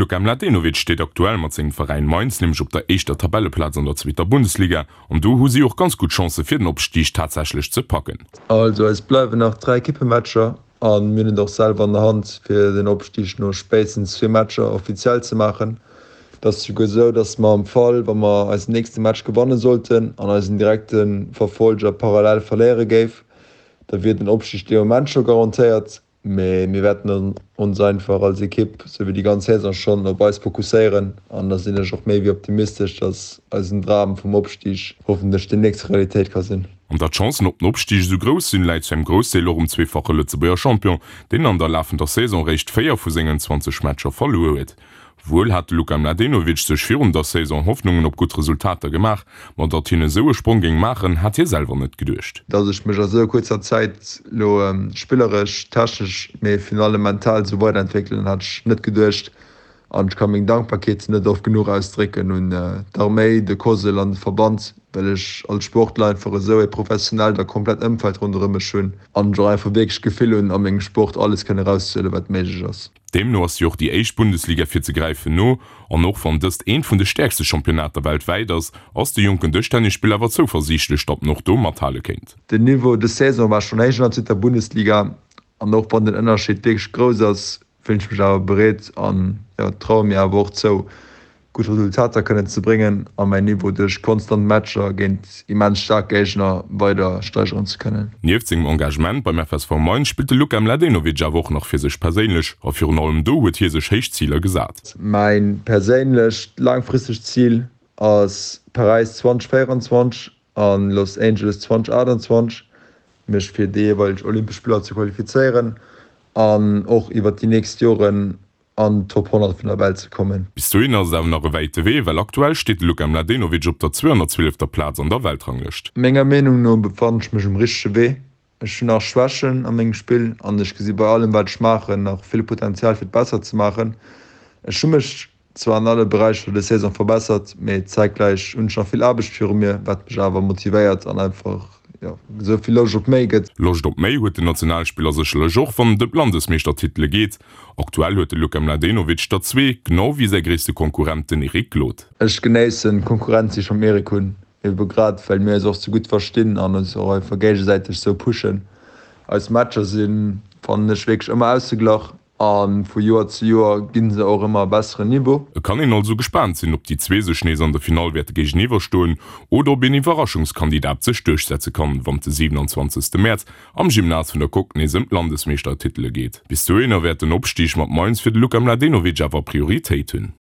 Luka Mladenovic steet aktuell mat sengem Veräin Mainz nämlech op der éischter Tabelleplaz an der zweeter Bundesliga an do hu si och ganz gutt Chancë fir den Opstig tatsächlech ze packen. Also eis bleiwen nach 3 Equippematcher an mir hunn et och selwer an der Hand fir den Opstig no spéitstens zwee Matcher offiziell ze maachen. Et ass souguer esou, dass mer am Fall wa mer eisen nächste Match gewanne sollten an eisen direkte Verfolger parallel verléiere géif, da wier den Opstig dee Moment scho garantéiert. Mee mir wäerten ons einfach als Ekipp, sou wéi déi ganz Saison schonn, op eis fokusséieren an da sinn ech och méi wéi optimistesch, dass eisen Dram vum Opstig hoffentlech deemnächst Realitéit ka sinn. An datt d'Chancen op den Opstig esou grouss sinn, läit zu engem Groussdeel och um zweefache Lëtzebuerger Champion, deen an der lafender Saison réischt 4 vu sengen 20 Matcher verluer huet. Wuel hat de Luka Mladenovic sech virun der Saison Hoffnungen op gutt Resultater gemaach, ma datt hien esou e Sprong géing maachen, hat hie selwer net geduecht. Datt ech mech a sou kuerzer Zäit lo spilleresch, technesch, mee virun allem mental sou weiderentwéckelen, hat ech net geduecht. An ech ka meng Dankbarkeet net oft genuch ausdrécken un d'Arméi, de COSL an de Verband, well ech als Sportler einfach esou e professionellt a komplett Ëmfeld ronderëm mech hunn an ech och einfach wierklech d'Gefill hunn, a mengem Sport alles kënnen erauszehuelen, wat méiglech ass. Deemno ass jo och déi éischt Bundesliga fir ze gräifen no, an och wann dëst eent vun de stäerkste Championnater weltwäit ass, ass de jonken Dëschtennisspiller awer zouversiichtlech, datt en och do mathale kéint. Den Niveau dës Saison war schonn héich an der zweeter Bundesliga an och wann den Ënnerscheed wierklech grouss ass, fillen ech mech awer bereet an jo traue mir awer och zou, gutt Resultater kënnen ze bréngen a mäin Niveau duerch konstant Matcher géint immens staark Géigner weider steigeren ze kënnen. Nieft sengem Engagement beim FSV Mainz spillt de Luka Mladenovic awer och nach fir sech perséinlech a virun allem do huet hie sech héich Ziler gesat. Mäin perséinlecht laangfristegt Zil ass Paräis 2024 an Los Angeles 2028, mech fir déi jeeweileg Olympesch Spiller ze qualifizéieren an och iwwert déi nächst Joren an d'Top 100 vun der Welt ze kommen. Bis dohin ass et awer nach e wäite Wee, well aktuell steet de Luka Mladenovic op der 212. Plaz an der Weltranglëscht. Menger Meenung no befannen ech mech um richtege Wee. Ech hunn nach Schwächen a mengem Spill an ech gesi bei allem wat ech maachen nach vill Potenzial fir et besser ze maachen. Ech hu mech zwar an alle Beräicher des Saison verbessert, mee zäitgläich hunn ech nach vill Aarbecht viru mir, wat mech awer motivéiert an einfach jo esou vill Loscht op méi gëtt. Loscht op méi huet den Nationalspiller sécherlech och, wann et ëm d'Landesmeeschtertitele geet. Aktuell huet de Luka Mladenovic der zwee, genau wéi säi gréisste Konkurrent, den Eric Glod. Ech genéissen d'Konkurrenz déi ech mam Eric hunn, ebe grad well mir eis och sou gutt verstinn an eis och einfach géigesäiteg sou pushen. Eis Matcher sinn, fannen ech, wierklech ëmmer ausgeglach a vu Joer zu Joer ginn se och ëmmer e besseren Niveau. Et kann een also gespaant sinn, ob déi zwee sech nees an der Finall wäerte géigeniwwer stoen oder ob een Iwwerraschungskandidat sech duerchsetze kann, wann de 27 Mäerz am Gymnase vun der Coque nees ëm d'Landesmeeschtertitele geet. Bis dohinner wäert den Opstig mat Mainz fir de Luka Mladenovic awer Prioritéit hunn.